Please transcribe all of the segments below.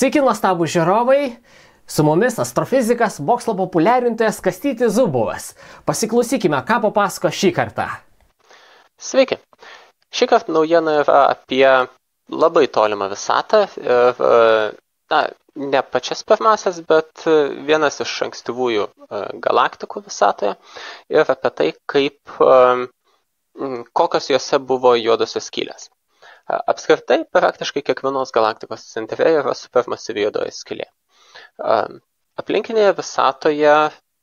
Sveiki, nuostabų žiūrovai, su mumis astrofizikas, mokslo populiarintojas Kastytis Zubovas. Pasiklausykime, ką papasako šį kartą. Sveiki. Šį kartą naujiena yra apie labai tolimą visatą ir, ne pačias pirmasias, bet vienas iš ankstyvųjų galaktikų visatoje ir apie tai, kokios jose buvo juodosios skylės. Apskritai, praktiškai kiekvienos galaktikos centre yra supermasyvi juodoji skylė. Aplinkinėje visatoje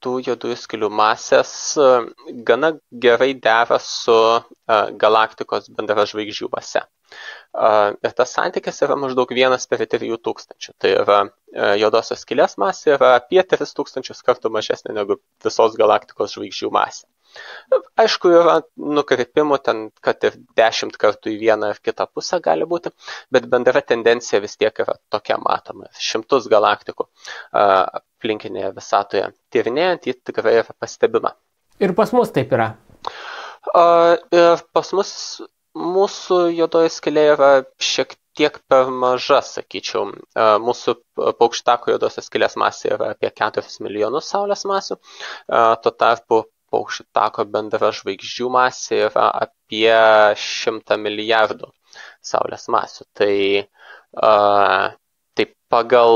tų juodųjų skylių masės gana gerai dera su galaktikos bendražvaigždžių mase. Ir tas santykis yra maždaug 1/3000. Tai yra juodosios skylės masė yra apie 3000 kartų mažesnė negu visos galaktikos žvaigždžių masė. Aišku, yra nukrypimų ten, kad ir 10 kartų į vieną ar kitą pusę gali būti, bet bendra tendencija vis tiek yra tokia matoma. Šimtus galaktikų aplinkinėje visatoje tyrinėjant, ji tikrai yra pastebima. Ir pas mus taip yra. Ir pas mus mūsų juodoji skylė yra šiek tiek per maža, sakyčiau. Mūsų paukštako juodosios skylės masė yra apie 4 milijonus Saulės masių, tuo tarpu paukštako bendra žvaigždžių masė yra apie 100 milijardų Saulės masių. Tai pagal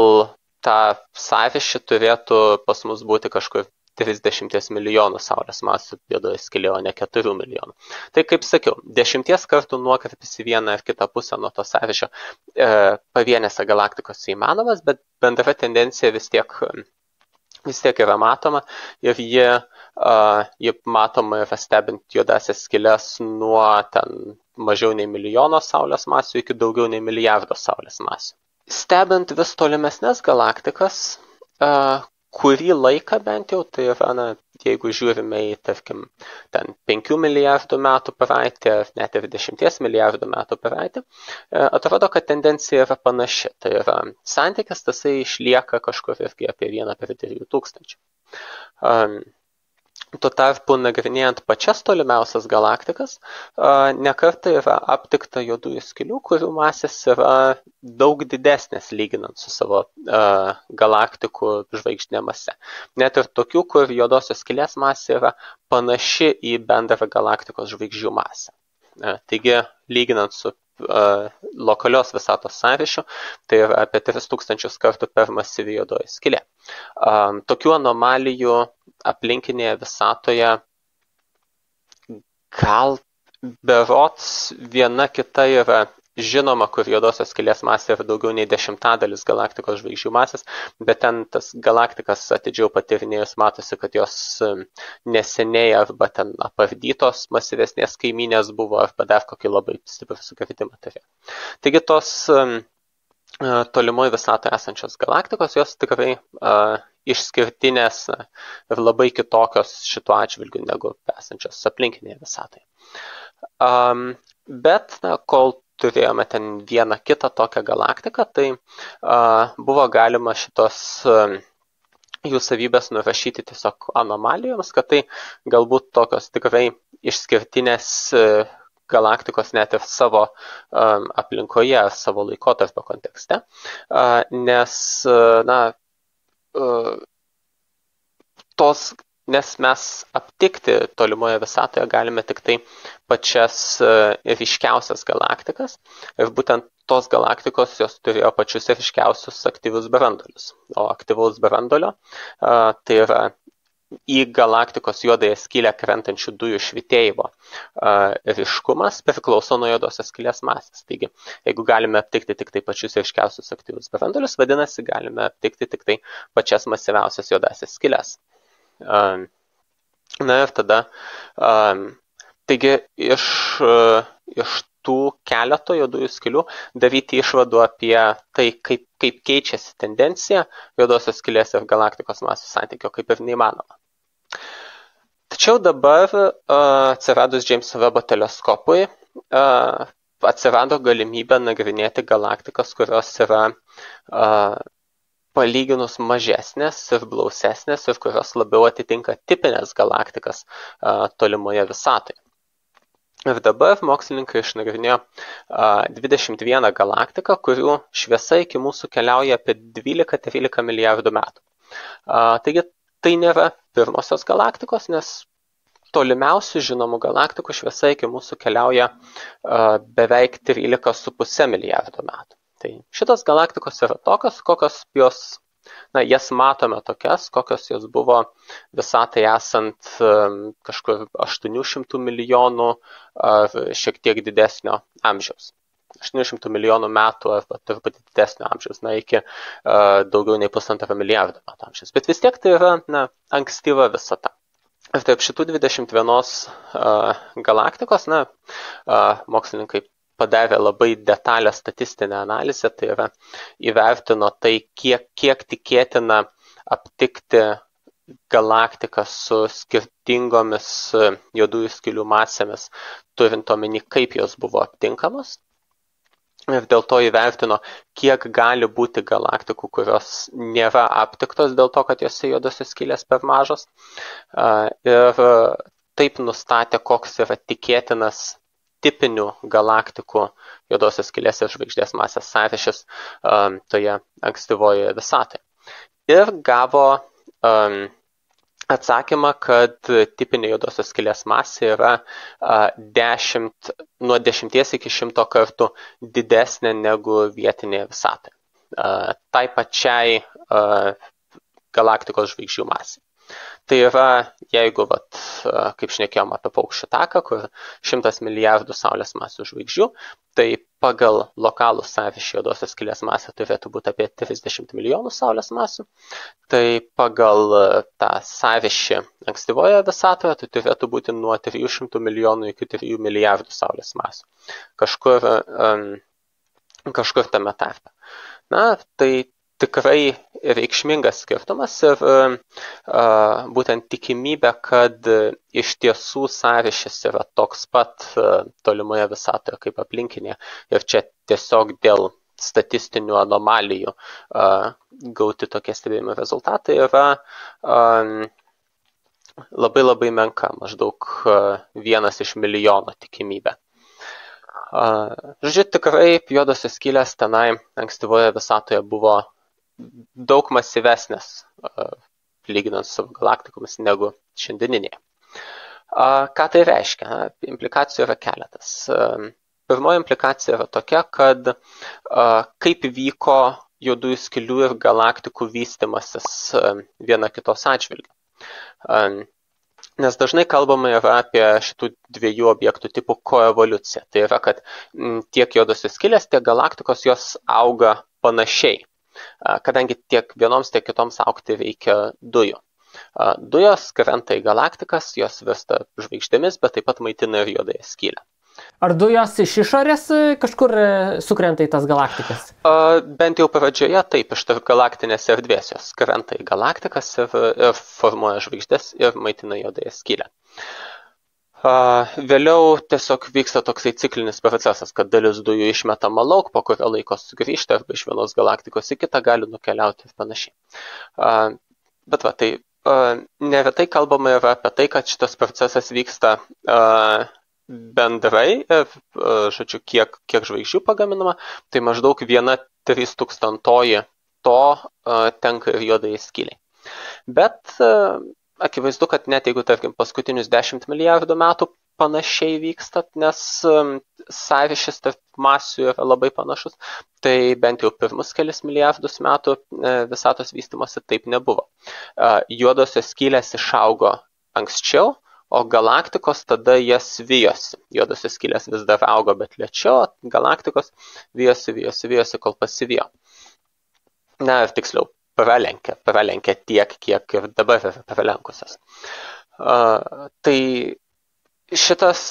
tą sąryšį turėtų pas mus būti kažkur 30 milijonų Saulės masių juodoji skylė, o ne 4 milijonų. Tai kaip sakiau, 10 kartų nuokrypis į vieną ar kitą pusę nuo to sąryšio pavienėse galaktikose įmanomas, bet bendra tendencija vis tiek yra matoma ir ji matoma yra stebint juodasias skyles nuo ten mažiau nei milijono Saulės masių iki daugiau nei milijardo Saulės masių. Stebint vis tolimesnės galaktikas, kurį laiką bent jau, tai yra, jeigu žiūrime į, tarkim, ten 5 milijardų metų praeitį, ar net ir 10 milijardų metų praeitį, atrodo, kad tendencija yra panaši. Tai yra santykis, tasai išlieka kažkur irgi apie 1/3000. Tuo tarpu, nagrinėjant pačias tolimiausias galaktikas, nekartą yra aptikta juodųjų skylių, kurių masės yra daug didesnės lyginant su savo galaktikų žvaigždinė mase. Net ir tokių, kur juodosios skylės masė yra panaši į bendrą galaktikos žvaigždžių masę. Taigi, lyginant su lokalios visatos sąryšiu, tai yra apie 3000 kartų per masyvi juodoji skylė. Tokių anomalijų aplinkinėje visatoje gal berods viena kita yra žinoma, kur juodosios skylės masė yra daugiau nei 10% galaktikos žvaigždžių masės, bet ten tas galaktikas atidžiau patyrinėjus matosi, kad jos neseniai arba ten apardytos masyvesnės kaimynės buvo arba dar kokį labai stiprų sukritimą turėjo. Taigi tos tolimoje visatoje esančios galaktikos, jos tikrai išskirtinės ir labai kitokios šituo atžvilgiu negu esančios aplinkinėje visatoje. Bet kol turėjome ten vieną kitą tokią galaktiką, tai buvo galima šitos jų savybės nurašyti tiesiog anomalijoms, kad tai galbūt tokios tikrai išskirtinės galaktikos net ir savo aplinkoje, savo laikotarpio kontekste, nes mes aptikti tolimoje visatoje galime tik tai pačias ryškiausias galaktikas ir būtent tos galaktikos jos turėjo pačius ryškiausius aktyvius branduolius. O aktyvaus branduolio tai yra į galaktikos juodąją skylę krentančių dujų švytėjimo ryškumas priklauso nuo juodosios skylės masės. Taigi, jeigu galime aptikti tik tai pačius ryškiausius aktyvius branduolius, vadinasi, galime aptikti tik tai pačias masyviausias juodasias skyles. Na ir tada, taigi iš tų keleto juodųjų skylių daryti išvadų apie tai, kaip keičiasi tendencija juodosios skylės ir galaktikos masių santykio, kaip ir neįmanoma. Tačiau dabar atsiradus Jameso Webb teleskopui atsirado galimybė nagrinėti galaktikas, kurios yra palyginus mažesnės ir blausesnės ir kurios labiau atitinka tipinės galaktikas tolimoje visatoje. Ir dabar mokslininkai išnagrinėjo 21 galaktiką, kurių šviesa iki mūsų keliauja apie 12-13 milijardų metų. Taigi tai nėra pirmosios galaktikos, nes tolimiausių žinomų galaktikų šviesa iki mūsų keliauja beveik 13,5 milijardų metų. Tai šitos galaktikos yra tokios, kokios jos, jas matome tokias, kokios jos buvo visatai esant kažkur 800 milijonų ar šiek tiek didesnio amžiaus. 800 milijonų metų arba truputį didesnio amžiaus, iki daugiau nei 1,5 milijardo metų amžiaus. Bet vis tiek tai yra ankstyva visata. Ir taip šitų 21 galaktikos, mokslininkai padarė labai detalę statistinę analizę, tai yra įvertino tai, kiek tikėtina aptikti galaktiką su skirtingomis juodųjų skylių masėmis, turint omeny, kaip jos buvo aptinkamos. Ir dėl to įvertino, kiek gali būti galaktikų, kurios nėra aptiktos dėl to, kad jose juodosios skylės per mažos. Ir taip nustatė, koks yra tikėtinas tipinių galaktikų juodosios skylės ir žvaigždės masės sąryšis toje ankstyvojoje visatoje. Ir gavo atsakymą, kad tipinė juodosios skylės masė yra nuo 10 iki 100 kartų didesnė negu vietinėje visatoje. Tai pačiai galaktikos žvaigždžių masė. Tai yra, jeigu, kaip šnekėjom apie paukščių taką, kur 100 milijardų Saulės masių žvaigždžių, tai pagal lokalų sąryšį juodosios skylės masė turėtų būti apie 30 milijonų Saulės masių. Tai pagal tą sąryšį ankstyvoje visatoje tai turėtų būti nuo 300 milijonų iki 3 milijardų Saulės masių. Kažkur tame tarpe. Tai tikrai reikšmingas skirtumas ir būtent tikimybė, kad iš tiesų sąryšis yra toks pat tolimoje visatoje kaip aplinkinėje ir čia tiesiog dėl statistinių anomalijų gauti tokie stebėjimo rezultatai yra labai labai menka, maždaug 1 iš milijono tikimybė. Žodžiu, tikrai juodosios skylės tenai ankstyvoje visatoje buvo daug masyvesnės lyginant su galaktikomis negu šiandieninėje. Ką tai reiškia? Implikacijų yra keletas. Pirmoji implikacija yra tokia, kad kaip vyko juodųjų skylių ir galaktikų vystimasis viena kitos atžvilgiu. Nes dažnai kalbama yra apie šitų dviejų objektų tipų koevoliuciją. Tai yra, kad tiek juodosios skylės, tiek galaktikos jos auga panašiai. Kadangi tiek vienoms, tiek kitoms augti reikia dujų. Dujos krenta į galaktikas, jos virsta žvaigždėmis, bet taip pat maitina ir juodąją skylę. Ar dujos iš išorės kažkur sukrenta į tas galaktikas? Bent jau pradžioje taip, iš tarp galaktinės erdvės jos krenta į galaktikas ir formuoja žvaigždės ir maitina juodąją skylę. Vėliau tiesiog vyksta toksai ciklinis procesas, kad dalis dujų išmetama lauk, po kurio laiko sugrįžta arba iš vienos galaktikos į kitą gali nukeliauti ir panašiai. Bet tai neretai kalbama yra apie tai, kad šitas procesas vyksta bendrai, žodžiu, kiek žvaigždžių pagaminama, tai maždaug 1/3000 to tenka ir juodai skyliai. Bet akivaizdu, kad net jeigu, tarkim, paskutinius 10 milijardų metų panašiai vyksta, nes sąryšis tarp masių yra labai panašus, tai bent jau pirmus kelis milijardus metų visatos vystymosi taip nebuvo. Juodosios skylės išaugo anksčiau, o galaktikos tada jas vijosi. Juodosios skylės vis dar augo, bet lėčiau, galaktikos vijosi, kol pasivijo. Ir tiksliau, pralenkė tiek, kiek ir dabar yra pralenkusios. Tai šitas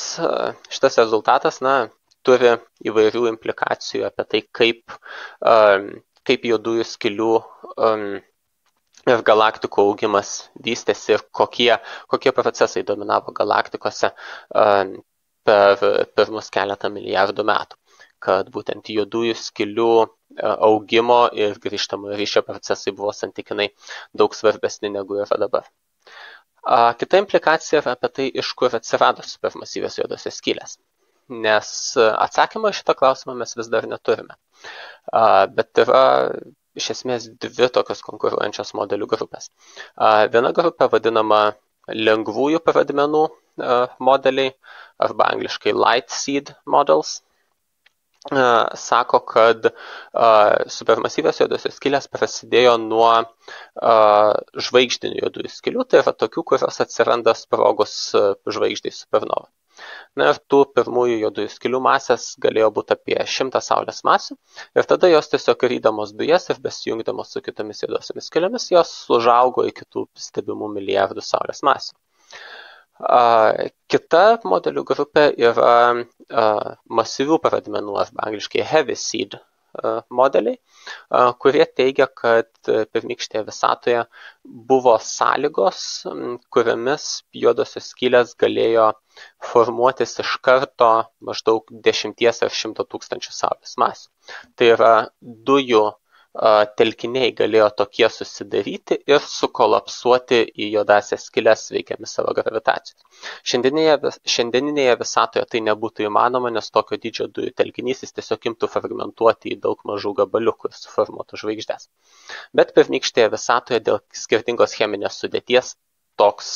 rezultatas, turi įvairių implikacijų apie tai, kaip juodųjų skylių ir galaktikų augimas vystėsi ir kokie procesai dominavo galaktikose per pirmus keletą milijardų metų. Kad būtent juodųjų skylių augimo ir grįžtamojo ryšio procesai buvo santykinai daug svarbesni negu yra dabar. Kita implikacija yra apie tai, iš kur atsirado supermasyvios juodosios skylės. Nes atsakymą į šitą klausimą mes vis dar neturime. Bet yra iš esmės dvi tokios konkuruojančios modelių grupės. Viena grupė vadinama lengvųjų pradmenų modeliai, arba angliškai light seed models. Sako, kad supermasyvios juodosios skylės prasidėjo nuo žvaigždinių juodųjų skylių, tai yra tokių, kurios atsiranda sprogus žvaigždai supernova. Na ir tų pirmųjų juodųjų skylių masės galėjo būti apie 100 Saulės masių ir tada jos tiesiog rydamos dujas ir besijungdamos su kitomis juodosiomis skylėmis, jos užaugo iki tų stebimų milijardų Saulės masių. Kita modelių grupė yra masyvių pradmenų, arba angliškai heavy seed modeliai, kurie teigia, kad pirmykštėje visatoje buvo sąlygos, kuriamis juodosios skylės galėjo formuotis iš karto maždaug 10 ar 100 tūkstančių Saulės masių. Tai yra dujų telkiniai galėjo tokie susidaryti ir sukolapsuoti į juodąsias skyles veikiami savo gravitacijos. Šiandieninėje visatoje tai nebūtų įmanoma, nes tokio dydžio dujų telkinys jis tiesiog imtų fragmentuoti į daug mažų gabaliukų ir suformuotų žvaigždės. Bet pirmykštėje visatoje dėl skirtingos cheminės sudėties toks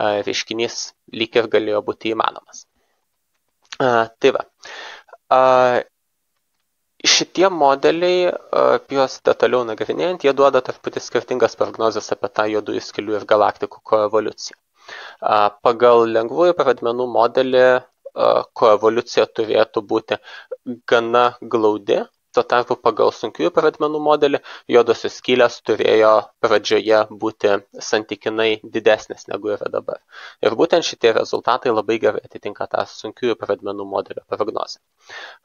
reiškinys lyg ir galėjo būti įmanomas. Tai va. Šitie modeliai, juos detaliau nagrinėjant, jie duoda truputį skirtingas prognozes apie tą juodųjų skylių ir galaktikų koevoliuciją. Pagal lengvųjų pradmenų modelį koevoliucija turėtų būti gana glaudi, tuo tarpu pagal sunkiųjų pradmenų modelį juodosios skylės turėjo pradžioje būti santykinai didesnės negu yra dabar. Ir būtent šitie rezultatai labai gerai atitinka tą sunkiųjų pradmenų modelio prognozę.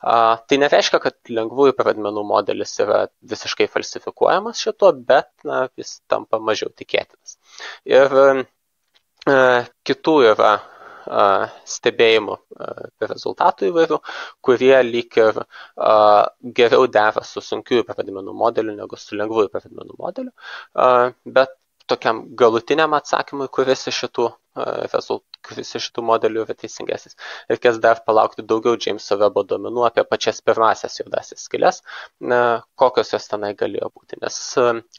Tai nereiškia, kad lengvųjų pradmenų modelis yra visiškai falsifikuojamas šituo, bet jis tampa mažiau tikėtinas. Ir kitų yra stebėjimų rezultatų įvairių, kurie lyg ir geriau dera su sunkiųjų pradmenų modeliu negu su lengvųjų pradmenų modeliu, bet tokiam galutiniam atsakymui, kuris iš šitų modelių yra teisingesnis. Reikės dar palaukti daugiau Jameso Webbo duomenų apie pačias pirmasias juodąsias skyles, kokios jos tenai galėjo būti. Nes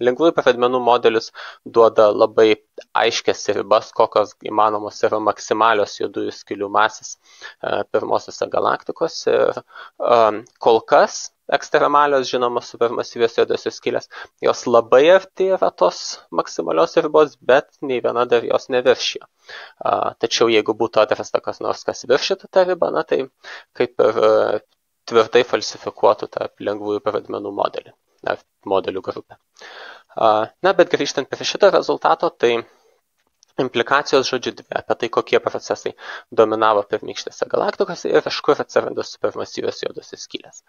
lengvųjų pradmenų modelis duoda labai aiškias ribas, kokios įmanomos yra maksimalios juodųjų skylių masės pirmosiose galaktikose. Kol kas ekstremalios, žinomos supermasyvios juodosios skylės, jos labai arti yra tos maksimalios ribos, bet nei viena dar jos neviršijo. Tačiau jeigu būtų atrasta kas nors, kas viršytų tą ribą, tai kaip ir tvirtai falsifikuotų tarp lengvųjų pradmenų modelių grupę. Bet grįžtant prie šito rezultato, tai implikacijos žodžiu dvi apie tai, kokie procesai dominavo pirmykštėse galaktikose ir iš kur atsiranda supermasyvios juodosios skylės.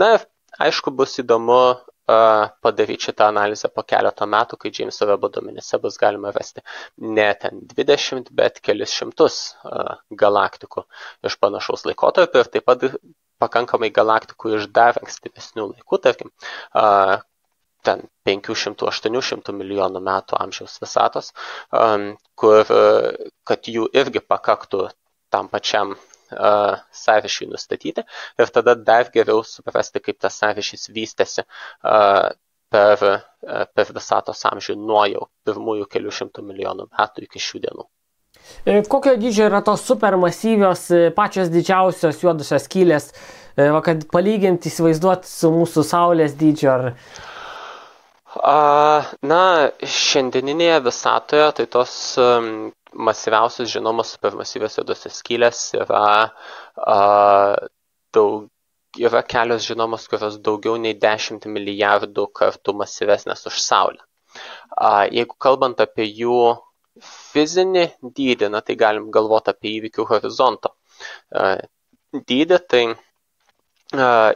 Ir aišku, bus įdomu padaryti šitą analizę po keleto metų, kai Jameso Webbo duomenyse bus galima rasti ne ten 20, bet kelis šimtus galaktikų iš panašaus laikotarpio ir taip pat pakankamai galaktikų iš dar ankstyvesnių laikų, tarkim, ten 500-800 milijonų metų amžiaus visatos, kad jų irgi pakaktų tam pačiam sąryšiui nustatyti ir tada dar geriau suprasti, kaip tas sąryšys vystėsi per visatos amžių nuo jau pirmųjų kelių šimtų milijonų metų iki šių dienų. Kokio dydžio yra tos supermasyvios, pačios didžiausios juodosios skylės, kad palyginti įsivaizduoti su mūsų Saulės dydžio? Šiandieninėje visatoje tai tos masyviausios žinomos supermasyvios juodosios skylės yra kelios žinomos, kurios daugiau nei 10 milijardų kartų masyvesnės už Saulę. Jeigu kalbant apie jų fizinį dydį, tai galim galvoti apie įvykių horizonto dydį, tai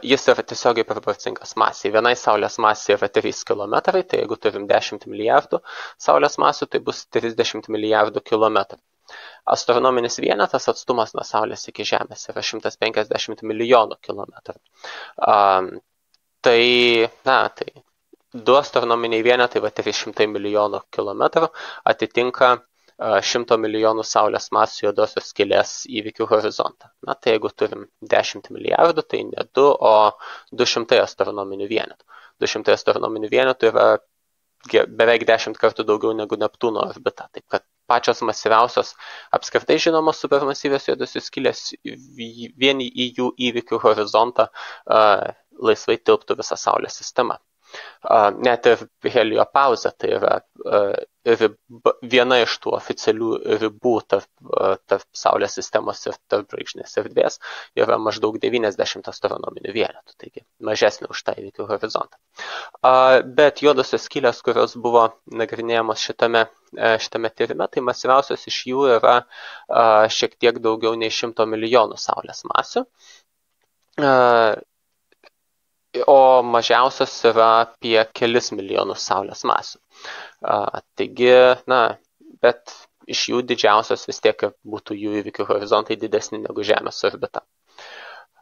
jis yra tiesiogiai proporcingas masiai. Vienai Saulės masė yra 3 km, tai jeigu turim 10 milijardų Saulės masių, tai bus 30 milijardų kilometrų. Astronominis vienetas atstumas nuo Saulės iki Žemės yra 150 milijonų kilometrų. Tai 2 astronominiai vienetai, 300 milijonų kilometrų, atitinka 100 milijonų Saulės masių juodosios skylės įvykių horizontą. Na, tai jeigu turim 10 milijardų, tai ne 2, o 200 astronominių vienetų. 200 astronominių vienetų yra beveik 10 kartų daugiau negu Neptūno orbita. Taip kad pačios masyviausios apskritai žinomos supermasyvios juodosios skylės vien į jų įvykių horizontą laisvai tilptų visą Saulės sistemą. Net ir heliopauzė, tai yra viena iš tų oficialių ribų tarp Saulės sistemos ir tarp žvaigždinės erdvės yra maždaug 90 astronominių vienetų, taigi mažesnė už tą įvykių horizontą. Bet juodosios skylės, kurios buvo nagrinėjamos šitame tyrime, tai masyviausios iš jų yra šiek tiek daugiau nei 100 milijonų Saulės masių. O mažiausios yra apie kelis milijonus Saulės masių. Taigi, bet iš jų didžiausios vis tiek būtų jų įvykių horizontai didesni negu Žemės orbita.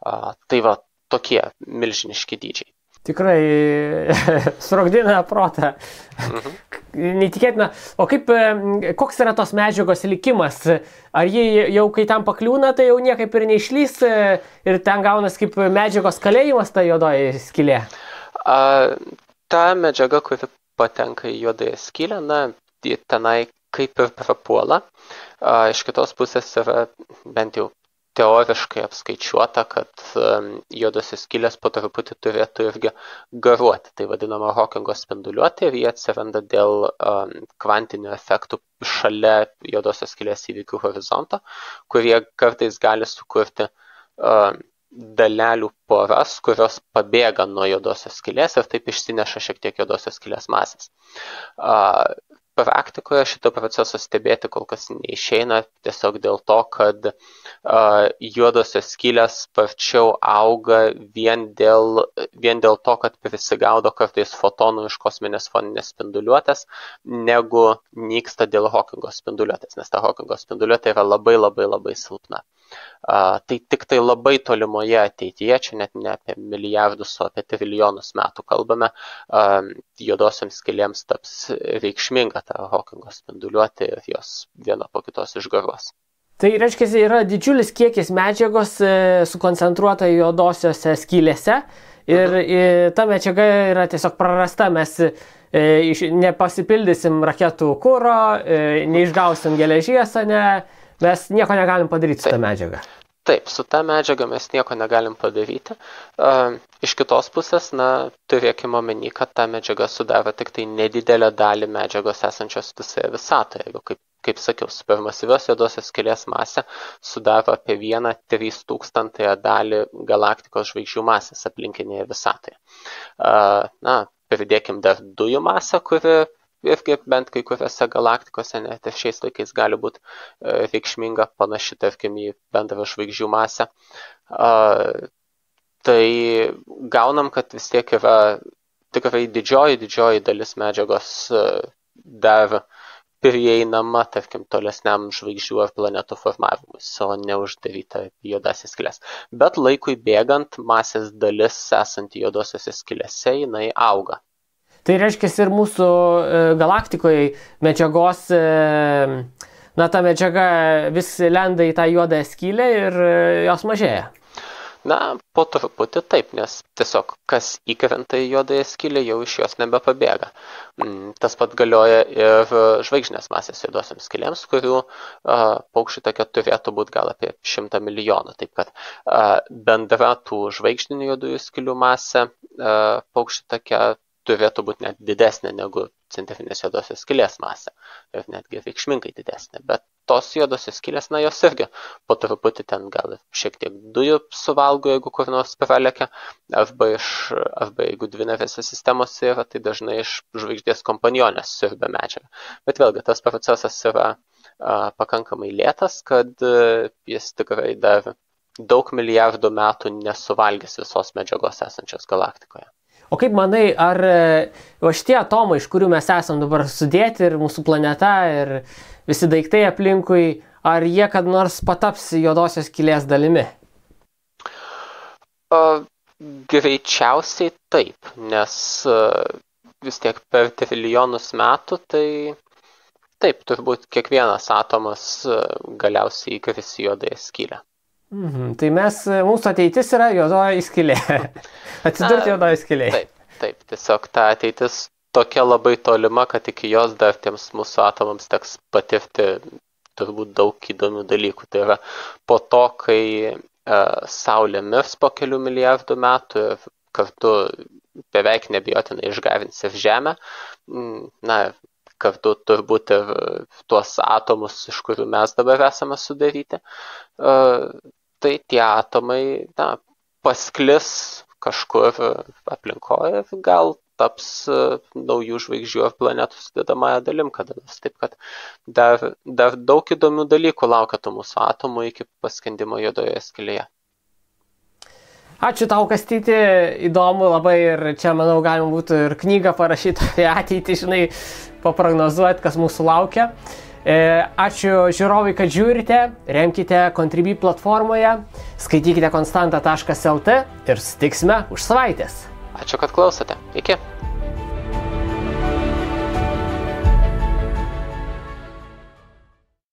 Tai va, tokie milžiniški dydžiai. Tikrai sprogdina protą. Neįtikėtina. O koks yra tos medžiagos likimas? Ar jie jau kai tam pakliūna, tai jau niekaip ir neišlys ir ten gaunas kaip medžiagos kalėjimas ta juodoji skylė? Ta medžiaga, kuri patenka į juodąją skylę, tenai kaip ir prapuola. Iš kitos pusės yra bent jau teoriškai apskaičiuota, kad juodosios skylės po truputį turėtų irgi garuoti. Tai vadinama Hawkingo spinduliuotė ir jie atsiranda dėl kvantinių efektų šalia juodosios skylės įvykių horizonto, kurie kartais gali sukurti dalelių poras, kurios pabėga nuo juodosios skylės ir taip išsineša šiek tiek juodosios skylės masės. Praktikoje šito proceso stebėti kol kas neišeina, tiesiog dėl to, kad juodosios skylės sparčiau auga vien dėl to, kad prisigaudo kartais fotonų iš kosminės foninės spinduliuotės, negu nyksta dėl Hawkingo spinduliuotės, nes ta Hawkingo spinduliuotė yra labai labai labai silpna. Tai tik tai labai tolimoje ateityje, čia net ne apie milijardus, o apie trilijonus metų kalbame, juodosioms skylėms taps reikšminga ta Hawkingo spinduliuotė ir jos viena po kitos išgaruos. Tai reiškia, yra didžiulis kiekis medžiagos sukoncentruota juodosiose skylėse ir ta medžiaga yra tiesiog prarasta, mes nepasipildysim raketų kuro, neišgausim geležies, mes nieko negalim padaryti su ta medžiaga. Taip, su ta medžiaga mes nieko negalim padaryti. Iš kitos pusės, turėkime omeny, kad ta medžiaga sudaro tik tai nedidelę dalį medžiagos esančios visoje visatoje. Jeigu, kaip sakiau, supermasyvios juodosios skylės masė sudaro apie 1/3000 dalį galaktikos žvaigždžių masės aplinkinėje visatoje. Pridėkim dar dujų masę, kuri irgi bent kai kuriuose galaktikose net ir šiais laikais gali būti reikšminga, panaši, tarkim, į bendrą žvaigždžių masę. Tai gaunam, kad vis tiek yra tikrai didžioji dalis medžiagos dar prieinama, tarkim, tolesniam žvaigždžių ar planetų formavimus, o neuždaryta juodasias skyles. Bet laikui bėgant masės dalis esanti juodosiose skylėse, jinai auga. Tai reiškia ir mūsų galaktikoje medžiagos, ta medžiaga vis lenda į tą juodąją skylę ir jos mažėja. Po truputį taip, nes tiesiog kas įkrenta į juodąją skylę, jau iš jos nebepabėga. Tas pat galioja ir žvaigždinės masės juodosiams skylėms, kurių paukščių takio turėtų būti gal apie 100 milijonų. Taip kad bendra tų žvaigždinių juodųjų skylių masė paukščių takio turėtų būti net didesnė negu centrinės juodosios skylės masė ir netgi reikšmingai didesnė. Bet tos juodosios skylės, jos irgi po truputį ten gal šiek tiek dujų suvalgo, jeigu kur nors pralekia, arba jeigu dvinarėse sistemose yra, tai dažnai iš žvaigždės kompanionės siurbia medžiagą. Bet vėlgi, tas procesas yra pakankamai lėtas, kad jis tikrai dar daug milijardų metų nesuvalgys visos medžiagos esančios galaktikoje. O kaip manai, ar šitie atomai, iš kurių mes esam dabar sudėti, ir mūsų planeta, ir visi daiktai aplinkui, ar jie kad nors pataps juodosios skylės dalimi? Greičiausiai taip, nes vis tiek per trilijonus metų tai taip, turbūt kiekvienas atomas galiausiai įkris į juodąją skylę. Tai mūsų ateitis yra juodoji skylė. Atsidurti juodoji skylė. Taip, tiesiog ta ateitis tokia labai tolima, kad iki jos dar tiems mūsų atomams teks patirti turbūt daug įdomių dalykų. Tai yra po to, kai Saulė mirs po kelių milijardų metų ir kartu beveik nebijotinai išgarins ir Žemę, kartu turbūt ir tuos atomus, iš kurių mes dabar esame sudaryti, tai tie atomai pasklis kažkur aplinkoje ir gal taps naujų žvaigždžių ar planetų sudedamąją dalim kada nors. Taip kad dar daug įdomių dalykų laukia tų mūsų atomų iki paskendimo juodoje skylėje. Ačiū tau, Kastyti, įdomu labai ir čia, manau, galima būtų ir knygą parašyti apie ateitį, žinai, paprognozuoti, kas mūsų laukia. Ačiū žiūrovai, kad žiūrite, remkite Contribui platformoje, skaitykite konstanta.lt ir susitiksime už savaitės. Ačiū, kad klausote. Iki.